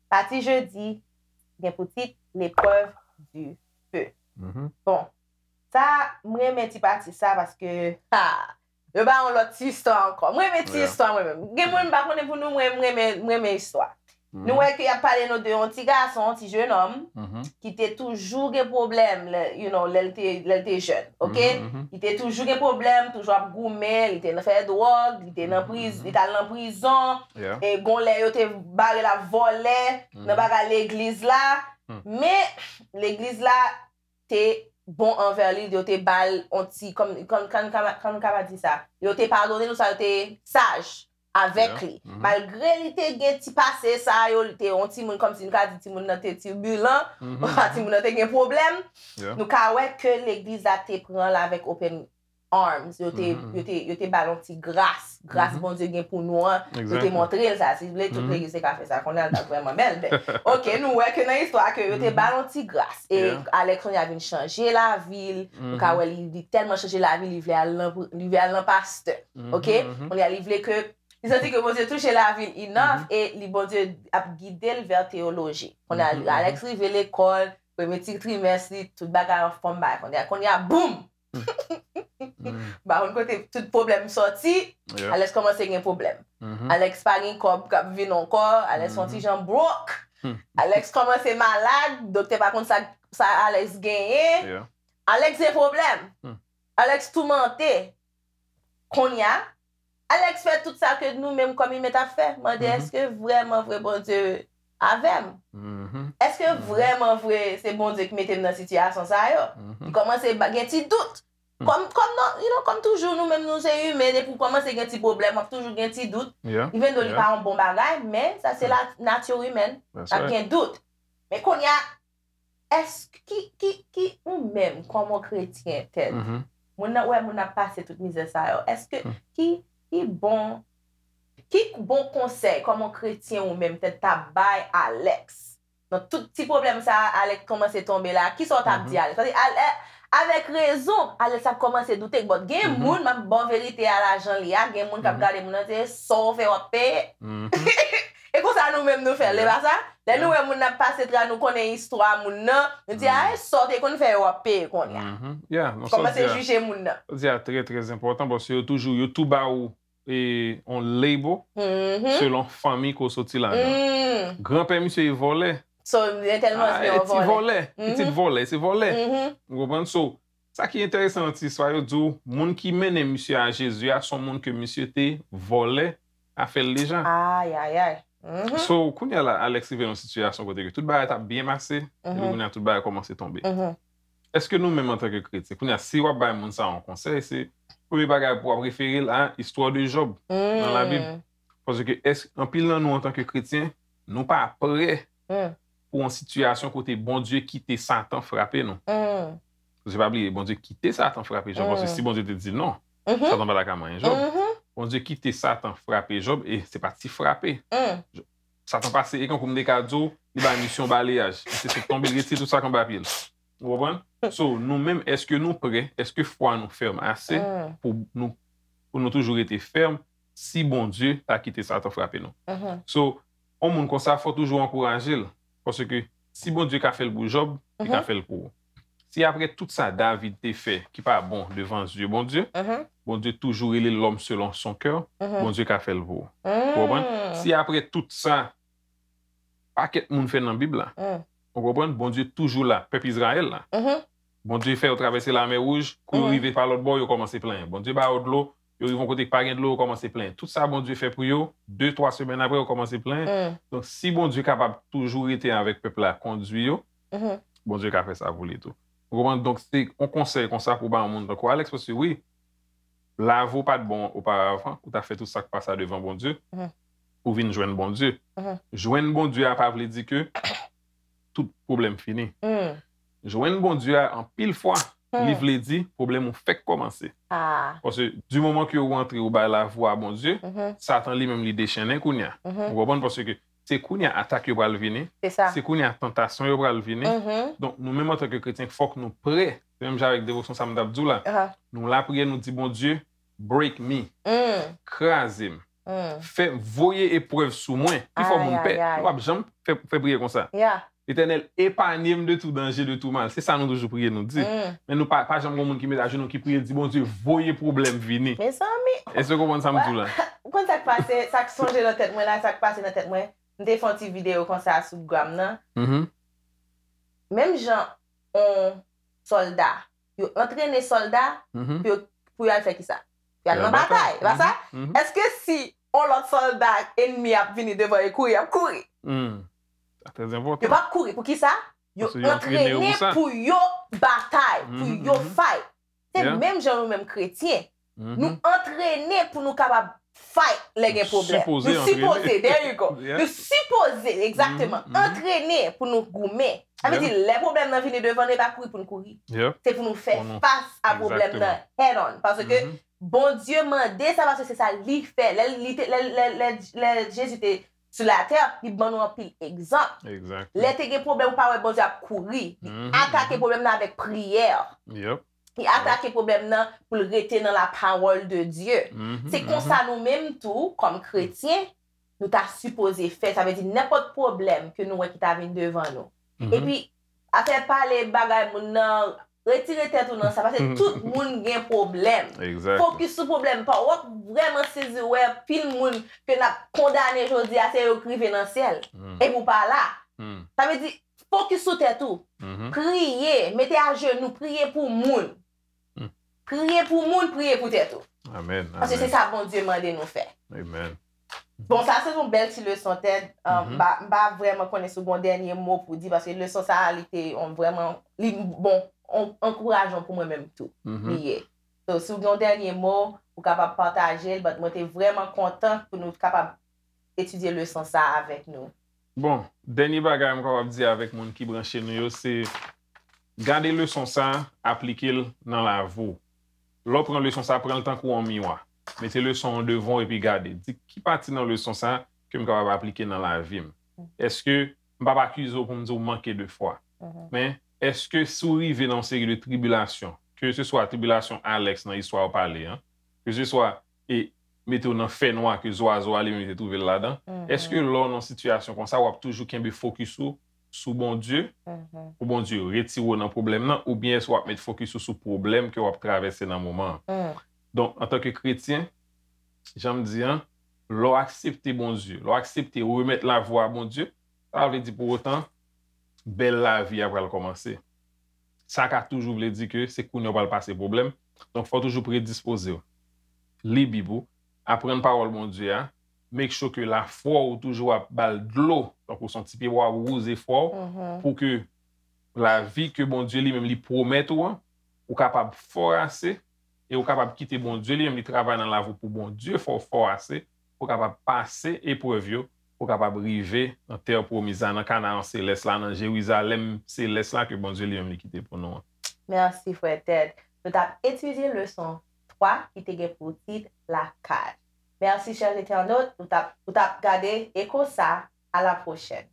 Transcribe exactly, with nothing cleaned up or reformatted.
Pati jedi gen pou tit L'épreuve du feu. Bon, sa, m renmen ti pati sa paske, ha, yo ba yon lòt ti istwa ankò. M renmen ti istwa mwen menm. Gen moun m pa konnen pou nou, mwen, m renmen, m renmen istwa. Nou wè ke y ap pale nou de yon ti gason, yon ti jenòm, ki te toujou gen pwoblèm, lè, you know, lè l te, lè l te jèn, oke? Li te toujou gen pwoblèm, toujou ap goumen, li te nan fè dwòg, li te nan priz, li t al nan prizon, e gon lè yo te bare l ap vòlè nan bagay legliz la, men legliz la te bon anvè li, yo te ba l on ti, kòm, kòm, kòm, kòm, kòm ka di sa, yo te padone l, sa yo te saj avèk li. Malgre li te gen ti pase sa yo, li te yon timoun, kòmsi n ka di timoun nan te tibilan, timoun nan te gen pwoblèm, nou ka wè ke legliz la te pran l avèk open arms. Yo te, yo te, yo te ba l yon ti gras. Gras Bondye gen pou nou an, yo te montre l sa. Si vle, tout legliz te ka fè sa. Kounye a l t ap vrèman bèl, men, oke, nou wè ke nan istwa ke yo te ba l yon ti gras. E Alex kounye a vin chanje lavi l. Nou ka wè li, li tèlman chanje lavi l, li vle al nan, li vle al nan pastè. Oke? Kounye a li vle ke, li santi ke Bondye touche lavi l enough e li, Bondye ap gide l vè teyoloji. Kounye a Alex rive lekòl, premye ti trimès li, tout bagay anfòm, bagay. Kounye a, kounye a, boum! M pa konn kote tout pwoblèm sòti, Alex kòmanse gen pwoblèm. Alex pa gen kòb k ap vin ankò, Alex yon ti jan broke. Alex kòmanse malad, doktè pa konn sa, sa Alex genyen. Alex gen pwoblèm. Alex toumante. Kounye a, Alex fè tout sa ke nou menm kòm imen t ap fè. Mande, èske vrèman vre Bondye avè m? Èske vrèman vre se Bondye ki mete m nan sitiyasyon sa yo? Li kòmanse ba, gen ti dout. Kòm, kòm non, you know, kòm toujou, nou menm nou se imen, depi w kòmanse gen ti pwoblèm, w ap toujou gen ti dout. Even though li pa yon bon bagay, men sa se la, nati imèn, n ap gen dout. Men kounye a, èske, ki, ki, ki, ou menm, kòm yon kretyen, Ted, moun nan, wè moun ap pase tout mizè sa yo, èske, ki, ki bon, ki bon konsèy, kòm yon kretyen ou menm, Ted, t ap bay Alex? Nan tout ti pwoblèm sa a, Alex kòmanse tonbe la, kisa w t ap di Alex? Paske Ale-, avèk rezon, Alex ap kòmanse doute, but gen moun, m ap ba w verite a la jan li a, gen moun k ap gade moun nan, se sa w fè w ap peye. E konsa nou menm nou fè l, e pa sa? Lè nou wè moun nan ap pase tra, nou konnen istwa moun nan, nou di, a, e sa w te konn fè yo w ap peye kounye a. Kòmanse jije moun nan. Sa w di a trè, trè enpòtan, paske yo toujou, yo tou ba ou, e, on label selon fanmi ke w soti ladan. Granpè misye e vòlè. So, gen tèlman se yon vòlè. Pitit vòlè, se vòlè. Ou konprann? So, sa ki enteresan nan ti istwa yo, di w, moun ki mennen misye a Jezi a, se yon moun ke misye te vòlè afè l deja. Ayayay. So, kounye a la, Alex rive nan yon sitiyasyon kote ke tout bagay t ap byen pase, epi kounye a tout bagay kòmanse tonbe. Èske nou menm antanke kretyen, kounye a, si w ap bay moun sa yon konsèy, se premye bagay pou w ap refere l a istwa de Jòb nan Labib? Paske èske anpil nan nou antanke kretyen, nou pa prè pou yon sitiyasyon kote Bondye kite Satan frape nou? Paske pa bliye, Bondye kite Satan frape Jòb, paske si Bondye te di non, Satan pa ta ka manyen Jòb. Bondye kite Satan frape Jòb, e se pa ti frape. Satan pase, e kankou m te ka di w, li bay misye yon balayaj. Misye sot tonbe, l retire tout sa k anba pye l. Ou konprann? So, nou menm, èske nou prè? Èske fwa nou fèm ase pou nou, pou nou toujou rete fèm si Bondye ta kite Satan frape nou? So, yon moun konsa, fò toujou ankouraje l. Paske si Bondye ka fè l pou Jòb, li ka fè l pou ou. Si apre tout sa David te fè ki pa bon devan zye Bondye, Bondye toujou rele l'homme selon son cœur, Bondye ka fè l pou ou. Ou konprann? Si apre tout sa pakèt moun fè nan Bib la, ou konprann? Bondye toujou la, pèp Izrayèl la. Bondye fè yo travèse Lamè Wouj, kou yo rive pa lòt bò, yo kòmanse plenyen. Bondye ba yo dlo, yo rive yon kote ki pa gen dlo, yo kòmanse plenyen. Tout sa Bondye fè pou yo, de, twa semèn apre, yo kòmanse plenyen. Donk, si Bondye kapab toujou rete avèk pèp la, kondui yo, Bondye ka fè sa pou li tou. Ou konprann? Donk, se yon konsèy konsa pou ba yon moun tankou Alex, paske wi, lavi w pa t bon oparavan, ou ta fè tout sa k pa sa devan Bondye, pou vin jwenn Bondye. Jwenn Bondye a pa vle di ke tout pwoblèm fini. Jwenn Bondye a, anpil fwa, li vle di pwoblèm ou fèk kòmanse. Paske di moman ke ou rantre, ou bay lavi w a Bondye, Satan li menm li dechennen kounye a. Ou konprann? Paske se kounye a atak yo pral vini, Se sa. se kounye a tantasyon yo pral vini. Mhm. Donk, nou menm antanke kretyen, fòk nou prè. Se menm jan avèk devosyon sa m t ap di w la. Aha. Nou lapriyè, nou di, Bondye, break me, Mm. kraze m, Mm. fè voye eprèv sou mwen, ki fè moun Ay, pè. ay, ay. Nou p ap janm fè, fè priyè konsa. Yeah. Letènèl, épargne m de tout danger, de tout mal. Se sa nou toujou priye, nou di. Mm. Men nou pa, pa janm gen moun ki met ajenou, ki priye, di, Bondye, voye pwoblèm vini. Mezanmi, Èske w konprann sa m di w la? ou konn sa k pase, sa k sonje nan tèt mwen la, sa k pase nan tèt mwen. M te fè yon ti videyo konsa sou Gram nan. Mhm, Menm jan yon sòlda, yo antrene sòlda mhm. pou yo, pou yo al fè kisa? Pou yo al Yo al nan batay, e pa sa? Mhm, mhm. Èske si yon lòt sòlda enmi ap vini devan yo kouri, y ap kouri? Hmm. Sa trè Yo enpòtan. p ap kouri. Pou kisa? Yo Paske yo antrene yo antrene pou sa. Pou yo batay, pou Mhm, yo mhm. fight. Se Yeah. menm jan nou menm kretyen. Mhm. Nou antrene pou nou kapab fight lè gen Nou pwoblèm. sipoze Nou sipoze, antrene. There you go. Yeah. Nou sipoze, egzakteman, Mhm, mhm. Antrene pou nou goumen. Sa vle Yeah. di, lè pwoblèm nan vini devan nou, e pa kouri pou n kouri. Yeah. Se pou nou fè Pou nou- fas a pwoblèm nan Egzakteman. head on. Paske Mhm. Bondye mande sa paske se sa li fè. Lè, li te, lè, lè, lè, lè Jezi te sou latè, li ban nou anpil egzanp. Exact. Lè te gen pwoblèm, ou pa wè Bondye ap kouri. Li Mhm, atake mhm. Pwoblèm nan avèk priyè. Yep. Li atake pwoblèm nan pou l rete nan la parole de Dieu. Mhm, Se mhm. Konsa nou menm tou, kòm kretyen, nou ta sipoze fè. Sa vle di nenpòt pwoblèm ke nou wè ki ta vin devan nou. Mhm. Epi, afè pale bagay moun nan, retire tèt ou nan sa, paske tout moun gen pwoblèm. Exact. Fokis sou pwoblèm pa w. W ap vrèman sezi wè pil moun ke n ap kondane jodi a, se yo k rive nan syèl. Hmm, Epi w pa la. hmm, Sa vle di, fokis sou tèt ou. mhm. Priye, mete ajenou, priye pou moun. Hmm. Priye pou moun, priye pou tèt ou. Amen. Paske se Amen. Sa Bondye mande nou fè. Amen. Bon, sa se yon bèl ti leson, Ted. Um, Mhm. M pa, m pa vrèman konnen si w gen yon dènye mo pou di, paske leson sa a, li te yon vrèman, li bon, yon ankourajan pou mwen menm tou. Mhm. Li ye. So, si w gen yon dènye mo, ou kapab pataje l, but mwen te vrèman kontan pou nou kapab etidye leson sa a avèk nou. Bon, dènye bagay m kapab di avèk moun ki branche nou yo, se gade leson sa a, aplike l nan lavi w. Lè w pran leson sa a, pran l tankou yon miwa. Mete leson an devan w epi gade. Di ki pati nan leson sa a ke m kapab aplike nan lavi m. Èske m p ap akize w pou m di w manke de fwa. Mhm. Men, èske si w rive nan yon seri de tribilasyon, ke se swa tribilasyon Alex nan istwa w pale an, ke se swa e mete w nan fènwa ke zwazo a li menm li te twouve l ladan, Mhm. Èske lè w nan sitiyasyon konsa, w ap toujou kenbe fokis ou sou Bondye, Mhm. pou Bondye retire w nan pwoblèm nan, oubyen èske w ap met fokis ou sou pwoblèm ke w ap travèse nan moman an? Mm. Donk, antanke kretyen, jan m di an, lè w aksepte Bondye, lè w aksepte remèt lavi w a Bondye, sa pa vle di pou otan bèl lavi a pral kòmanse. Sa ka toujou vle di ke se kounye a w pral pase pwoblèm. Donk, fò w toujou predispoze w. Li Bib ou, aprann pawòl Bondye a, make sure ke lafwa w toujou ap ba l dlo, tankou se yon ti pyebwa w ap wouze fwa w, Mhm. pou ke lavi ke Bondye li menm li pwomèt ou an, ou kapab fò ase, e ou kapab kite Bondye li menm li travay nan lavi w pou Bondye fè w fò ase, pou w kapab pase eprèv yo, pou w kapab rive nan tè pwomiz la, nan Kanaran selès la, nan Jerizalèm selès la ke Bondye li menm li kite pou nou an. Mèsi, frè Ted. Nou t ap etidye leson twa ki te gen pou tit Lakaj. Mèsi, chè entènot, ou t ap, ou t ap gade Eko sa. À la prochaine.